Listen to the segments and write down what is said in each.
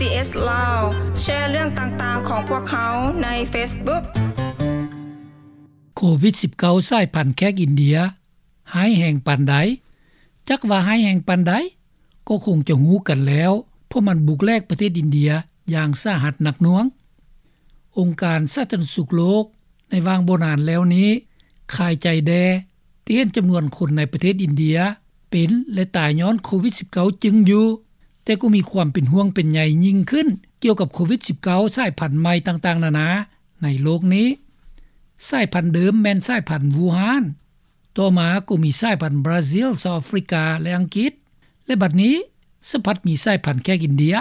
SBS ລາວ ແຊເລື່ອງຕ່າງໆຂອງພວກເຮົາໃນ Facebook. ໂຄວິດສິບເກົ້າ ສາຍພັນແຂກອິນເດຍ ຮ້າຍແຮງປານໃດ? ຈັກວ່າຮ້າຍແຮງປານໃດ ກໍຄົງຈະຮູ້ກັນແລ້ວ ເພາະມັນບຸກແຫຼກປະເທດອິນເດຍຢ່າງສາຫັດໜັກໜ່ວງ. ອົງການສາທາລະນະສຸກໂລກໃນຫວ່າງບໍ່ນານແລ້ວນີ້ ຄາຍໃຈແດ່ ທີ່ເຫັນຈຳນວນຄົນໃນປະເທດອິນເດຍເປັນ ແລະ ຕາຍຍ້ອນໂຄວິດສິບເກົ້າ ຈຶ່ງຢູ່, ແຕ່ກໍມີຄວາມເປັນຫ່ວງເປັນໃຍຍິ່ງຂຶ້ນ ກ່ຽວກັບໂຄວິດສິບເກົ້າ ສາຍພັນໃໝ່ຕ່າງໆນານາໃນໂລກນີ້. ສາຍພັນເດີມແມ່ນສາຍພັນວູຮານ, ຕໍ່ມາກໍມີສາຍພັນບຣາຊິລ, ເຊົາອາຟຣິກາ ແລະ ອັງກິດ, ແລະ ບັດນີ້ສະພັດມີສາຍພັນແຂກອິນເດຍ.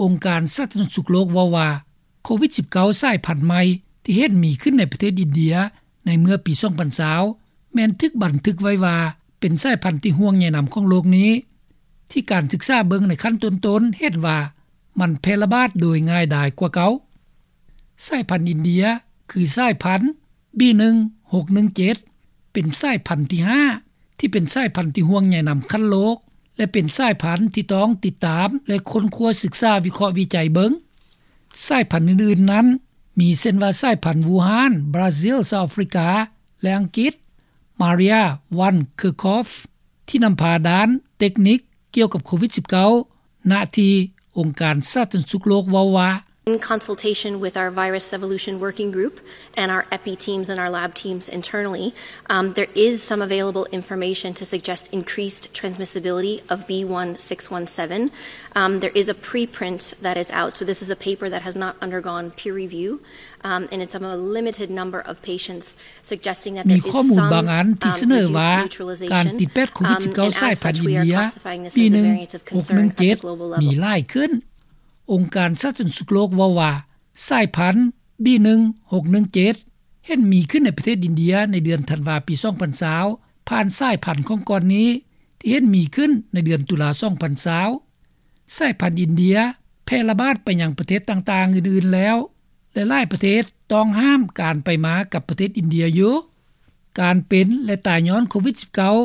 ອົງການສາທາລະນະສຸກໂລກເວົ້າວ່າ ໂຄວິດສິບເກົ້າ ສາຍພັນໃໝ່ທີ່ເຫັນມີຂຶ້ນໃນປະເທດອິນເດຍໃນເມື່ອປີສອງພັນຊາວ ແມ່ນຖືກບັນທຶກໄວ້ວ່າເປັນສາຍພັນທີ່ຫ່ວງໃຍນຳຂອງໂລກນີ້, ທີ່ການສຶກສາເບິ່ງໃນຂັ້ນຕົ້ນໆເຫັນວ່າມັນແຜ່ລະບາດໂດຍງ່າຍດາຍກວ່າເກົ່າ. ສາຍພັນອິນເດຍ ຄືສາຍພັນ ບີໜຶ່ງຫົກໜຶ່ງເຈັດ ເປັນສາຍພັນທີຫ້າ ທີ່ເປັນສາຍພັນທີ່ຫ່ວງໃຍນຳຂັ້ນໂລກ ແລະ ເປັນສາຍພັນທີ່ຕ້ອງຕິດຕາມ ແລະ ຄົ້ນຄວ້າສຶກສາວິເຄາະວິໄຈເບິ່ງ. ສາຍພັນອື່ນໆນັ້ນ ມີເຊັ່ນວ່າສາຍພັນວູຮານ, ບຣາຊິລ, ເຊົາອາຟຣິກາ ແລະ ອັງກິດ. ມາເຣຍ ວັນ ເຄີຄອຟ ທີ່ນຳພາດ້ານເຕັກນິກກ່ຽວກັບໂຄວິດສິບເກົ້າ ນະທີ່ອົງການສາທາລະນະສຸກໂລກເວົ້າວ່າ In consultation with our virus evolution working group and our epi teams and our lab teams internally, um, there is some available information to suggest increased transmissibility of B one six one seven. Um, there is a preprint that is out, so this is a paper that has not undergone peer review, um, and it's of a limited number of patients, suggesting that there is some, um, reduced neutralization, um, and as such, we are classifying this as a variant of concern at the global level. ມີຂໍ້ມູນບາງອັນທີ່ສະເໜີວ່າການຕິດແປດໂຄວິດສິບເກົ້າສາຍພັນອິນເດຍ ບີໜຶ່ງຫົກໜຶ່ງເຈັດ ມີຫຼາຍຂຶ້ນ. ອົງການສາທາລະນະສຸກໂລກເວົ້າວ່າ ສາຍພັນ ບີໜຶ່ງຫົກໜຶ່ງເຈັດ ເຫັນມີຂຶ້ນໃນປະເທດອິນເດຍໃນເດືອນທັນວາປີສອງພັນຊາວ ຜ່ານສາຍພັນຂອງກ່ອນນີ້ ທີ່ເຫັນມີຂຶ້ນໃນເດືອນຕຸລາສອງພັນຊາວ. ສາຍພັນອິນເດຍແຜ່ລະບາດໄປຍັງປະເທດຕ່າງໆອື່ນໆແລ້ວ ແລະ ຫຼາຍປະເທດຕ້ອງຫ້າມການໄປມາກັບປະເທດອິນເດຍຢູ່. ການເປັນ ແລະ ຕາຍຍ້ອນໂຄວິດສິບເກົ້າ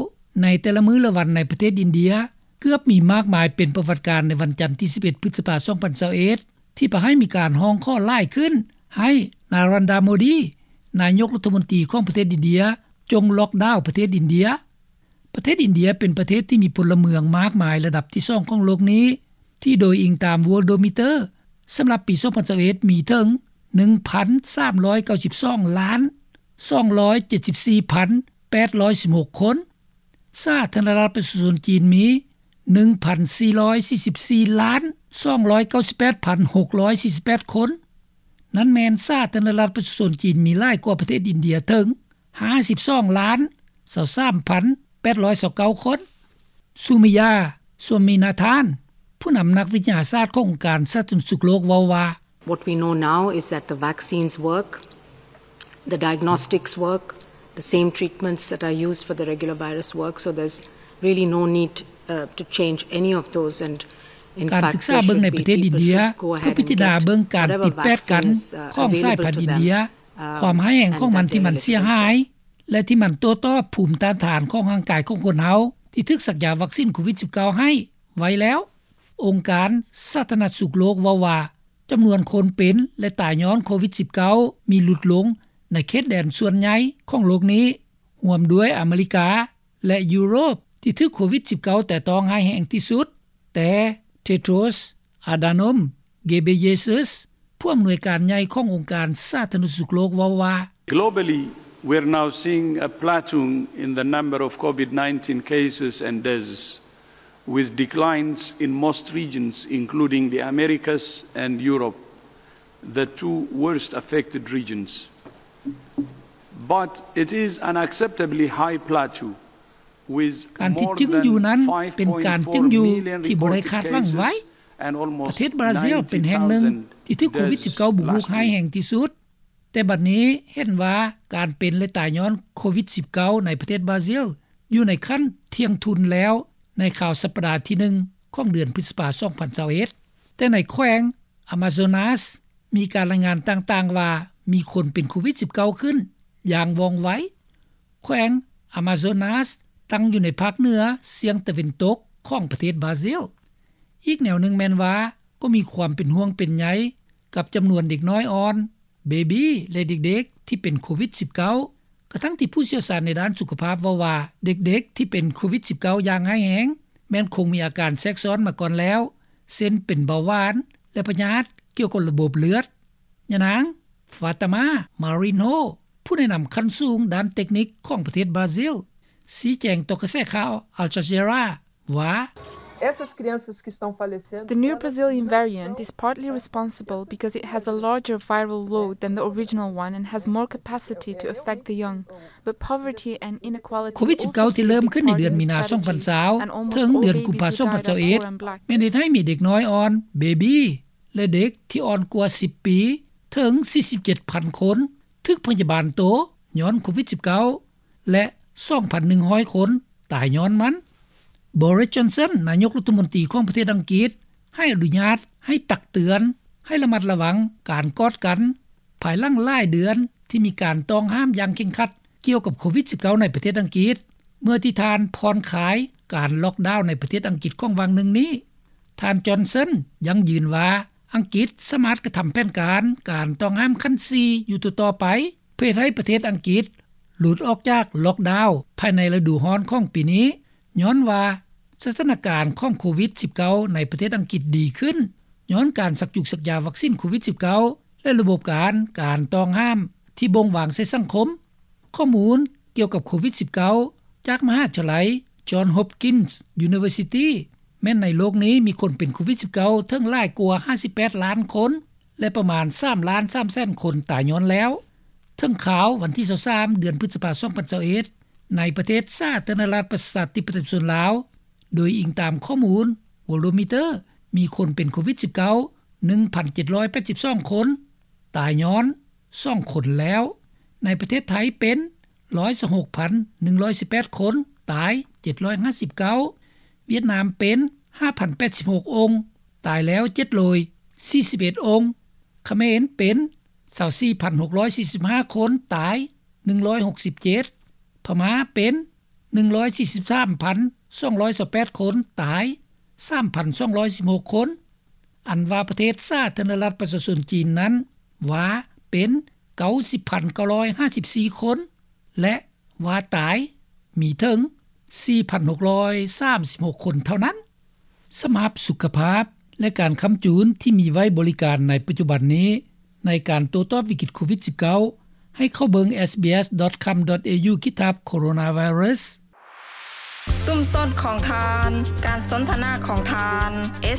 ໃນແຕ່ລະມື້ລະວັນໃນປະເທດອິນເດຍ ເກືອບມີມາກມາຍເປັນປະຫວັດການໃນວັນຈັນທີສິບເອັດ ພຶດສະພາ ສອງພັນຊາວເອັດ ທີ່ພາໃຫ້ມີການຮ້ອງຂໍຫຼາຍຂຶ້ນ ໃຫ້ນາຣັນດາ ໂມດີ ນາຍົກລັດຖະມົນຕີຂອງປະເທດອິນເດຍ ຈົ່ງລັອກດາວປະເທດອິນເດຍ. ປະເທດອິນເດຍເປັນປະເທດທີ່ມີພົນລະເມືອງມາກມາຍລະດັບທີສອງຂອງໂລກນີ້ ທີ່ໂດຍອີງຕາມ Worldometer ສຳລັບປີສອງພັນຊາວເອັດ ມີເຖິງ ໜຶ່ງພັນສາມຮ້ອຍເກົ້າສິບສອງລ້ານ ສອງຮ້ອຍເຈັດສິບສີ່ພັນແປດຮ້ອຍສິບຫົກຄົນ. ສາທາລະນະລັດປະຊາຊົນຈີນມີ ໜຶ່ງພັນສີ່ຮ້ອຍສີ່ສິບສີ່ລ້ານ ສອງຮ້ອຍເກົ້າສິບແປດພັນຫົກຮ້ອຍສີ່ສິບແປດຄົນ. ນັ້ນແມ່ນສາທາລະນະລັດປະຊາຊົນຈີນມີຫຼາຍກວ່າປະເທດອິນເດຍເຖິງ ຫ້າສິບສອງລ້ານ ຊາວສາມພັນແປດຮ້ອຍຊາວເກົ້າຄົນ. ຊູມີຢາ ຊວາມີນາທານ ຜູ້ນຳນັກວິທະຍາສາດຂອງອົງການສາທາລະນະສຸກໂລກເວົ້າວ່າ What we know now is that the vaccines work, the diagnostics work, the same treatments that are used for the regular virus work, so there's really no need, uh, to change any of those, and in fact, there should be people should go ahead and, uh, ການສຶກສາເບິ່ງໃນປະເທດອິນເດຍ ເພື່ອພິຈາລະນາເບິ່ງການຕິດແປດກັນຂອງສາຍພັນອິນເດຍ, ຄວາມຮ້າຍແຮງຂອງມັນທີ່ມັນເສຍຫາຍ ແລະ ທີ່ມັນໂຕ້ຕອບພູມຕ້ານທານຂອງຮ່າງກາຍຂອງຄົນເຮົາ ທີ່ຖືກສັກຢາວັກຊິນໂຄວິດສິບເກົ້າໃຫ້ໄວ້ແລ້ວ. ອົງການສາທາລະນະສຸກໂລກເວົ້າວ່າ ຈຳນວນຄົນເປັນ ແລະ ຕາຍຍ້ອນໂຄວິດສິບເກົ້າ ມີຫຼຸດລົງໃນເຂດແດນສ່ວນໃຫຍ່ຂອງໂລກນີ້, ຮ່ວມດ້ວຍອາເມລິກາ ແລະ ຢູໂຣບ ທີ່ຖືກໂຄວິດສິບເກົ້າແຕະຕ້ອງຮ້າຍແຮງທີ່ສຸດ, ແຕ່ Tedros Adhanom Ghebreyesus ຜູ້ອຳນວຍການໃຫຍ່ຂອງອົງການສາທາລະນະສຸກໂລກເວົ້າວ່າ Globally, we're now seeing a plateauing in the number of COVID nineteen cases and deaths, with declines in most regions, including the Americas and Europe, the two worst affected regions. But it is an unacceptably high plateau, with more than five point four million reported cases and almost nine thousand deaths last year. ການທີ່ຕຶງຢູ່ນັ້ນເປັນການຕຶງຢູ່ທີ່ບໍ່ໄດ້ຄາດຫວັງໄວ້. ປະເທດບຣາຊິລເປັນແຫ່ງໜຶ່ງທີ່ຖືກໂຄວິດສິບເກົ້າບຸກລຸກຮ້າຍແຮງທີ່ສຸດ, ແຕ່ບັດນີ້ເຫັນວ່າການເປັນ ແລະ ຕາຍຍ້ອນໂຄວິດສິບເກົ້າໃນປະເທດບຣາຊິລ ຢູ່ໃນຂັ້ນທ່ຽງທຸນແລ້ວໃນຄາວສັບປະດາທີໜຶ່ງຂອງເດືອນພຶດສະພາ ສອງພັນຊາວເອັດ. ແຕ່ໃນແຂວງອາມາໂຊນາສ ມີການລາຍງານຕ່າງໆວ່າມີຄົນເປັນໂຄວິດສິບເກົ້າຂຶ້ນຢ່າງວ່ອງໄວ. ແຂວງອາມາໂຊນາສຕັ້ງຢູ່ໃນພາກເໜືອສ່ຽງຕາເວັນຕົກຂອງປະເທດບຣາຊິລ. ອີກແນວໜຶ່ງແມ່ນວ່າ ກໍມີຄວາມເປັນຫ່ວງເປັນໃຍ ກັບຈຳນວນເດັກນ້ອຍອ່ອນ, ເບບີ ແລະເດັກໆທີ່ເປັນໂຄວິດ-19 ກະທັ່ງທີ່ຜູ້ຊ່ຽວຊານໃນດ້ານສຸຂະພາບເວົ້າວ່າ ເດັກໆທີ່ເປັນໂຄວິດ-19 ຢ່າງຮ້າຍແຮງ ແມ່ນຄົງມີອາການແຊກຊ້ອນມາກ່ອນແລ້ວ ເຊັ່ນເປັນເບົາຫວານ ແລະພະຍາດກ່ຽວກັບລະບົບເລືອດ. ຍານາງ Fatima Marinho ຜູ້ແນະນຳຂັ້ນສູງດ້ານເຕັກນິກຂອງປະເທດບຣາຊິລ ຊີ້ແຈງຕໍ່ກະແສຂ່າວ Al Jazeera ວ່າ The new Brazilian variant is partly responsible because it has a larger viral load than the original one and has more capacity to affect the young. But poverty and inequality ໂຄວິດ-19 ທີ່ເລີ່ມຂຶ້ນໃນເດືອນມີນາ 2020 ເຖິງເດືອນກຸມພາ 2021 ແມ່ນເຮັດໃຫ້ມີເດັກນ້ອຍອ່ອນ, ເບບີ ແລະເດັກທີ່ອ່ອນກວ່າ 10 ປີ ເຖິງ 47,000 ຄົນ ຖືກພະຍາບານໂຕຍ້ອນໂຄວິດ-19 ແລະ 2,100 ຄົນຕາຍຍ້ອນມັນ. Boris Johnson ນາຍົກລັດຖະມົນຕີຂອງປະເທດອັງກິດ ໃຫ້ອະນຸຍາດໃຫ້ຕັກເຕືອນໃຫ້ລະມັດລະວັງການກອດກັນ ພາຍຫຼັງຫຼາຍເດືອນທີ່ມີການຕ້ອງຫ້າມຢ່າງເຄັ່ງຄັດກ່ຽວກັບໂຄວິດ-19 ໃນປະເທດອັງກິດ ເມື່ອທີ່ທ່ານຜ່ອນຄາຍການລ໊ອກດາວໃນປະເທດອັງກິດຂອງຫວ່າງໜຶ່ງນີ້. ທ່ານ Johnson ຢັ້ງຢືນວ່າ ອັງກິດສາມາດກະທຳແຜນການການຕ້ອງຫ້າມຂັ້ນ 4 ຢູ່ຕໍ່ໆໄປ ເພື່ອເຮັດໃຫ້ປະເທດອັງກິດຫຼຸດອອກຈາກລ໊ອກດາວພາຍໃນລະດູຮ້ອນຂອງປີນີ້ ຍ້ອນວ່າສະຖານະການຂອງໂຄວິດ-19 ໃນປະເທດອັງກິດດີຂຶ້ນ ຍ້ອນການສັກຈຸກສັກຢາວັກຊິນໂຄວິດ-19 ແລະລະບົບການການຕ້ອງຫ້າມທີ່ບົ່ງວາງໃສ່ສັງຄົມ. ຂໍ້ມູນກ່ຽວກັບໂຄວິດ-19 ຈາກມະຫາວິທະຍາໄລ Johns Hopkins University ແມ່ນໃນໂລກນີ້ມີຄົນເປັນໂຄວິດ-19 ເຖິງຫຼາຍກວ່າ 58 ລ້ານຄົນ ແລະປະມານ 3 ລ້ານ 3 ແສນຄົນຕາຍຍ້ອນແລ້ວ. ເຖິງຄາວວັນທີ 23 ເດືອນພຶດສະພາ 2021 ໃນປະເທດສາທາລະນະລັດປະຊາທິປະໄຕປະຊາຊົນລາວ ໂດຍອີງຕາມຂໍ້ມູນ Worldometer ມີຄົນເປັນໂຄວິດ-19 ໜຶ່ງພັນເຈັດຮ້ອຍແປດສິບສອງຄົນ ຕາຍຍ້ອນ 2 ຄົນແລ້ວ. ໃນປະເທດໄທເປັນ 126,118 ຄົນ ຕາຍ 759. ຫວຽດນາມເປັນ 5,086 ອົງ ຕາຍແລ້ວ 741 ອົງ. ຂະເໝນເປັນ 24,645 ຄົນ ຕາຍ 167. ພະມ້າເປັນ 143,228 ຄົນ ຕາຍ 3,216 ຄົນ. ອັນວ່າປະເທດສາທາລະນະລັດປະຊາຊົນຈີນນັ້ນ ວ່າເປັນ 90,954 ຄົນ ແລະວ່າຕາຍມີເຖິງ 4,636 ຄົນເທົ່ານັ້ນ. ສຳລັບສຸຂະພາບ ແລະການຄ້ຳຈູນທີ່ມີໄວ້ບໍລິການໃນປັດຈຸບັນນີ້ ໃນການໂຕ້ຕອບວິກິດໂຄວິດ-19 ໃຫ້ເຂົ້າເບິ່ງ SBS.com.au/coronavirus. ຊຸມຊົນຂອງທ່ານ, ການສົນທະນາຂອງທ່ານ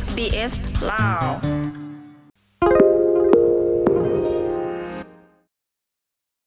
SBS ລາວ.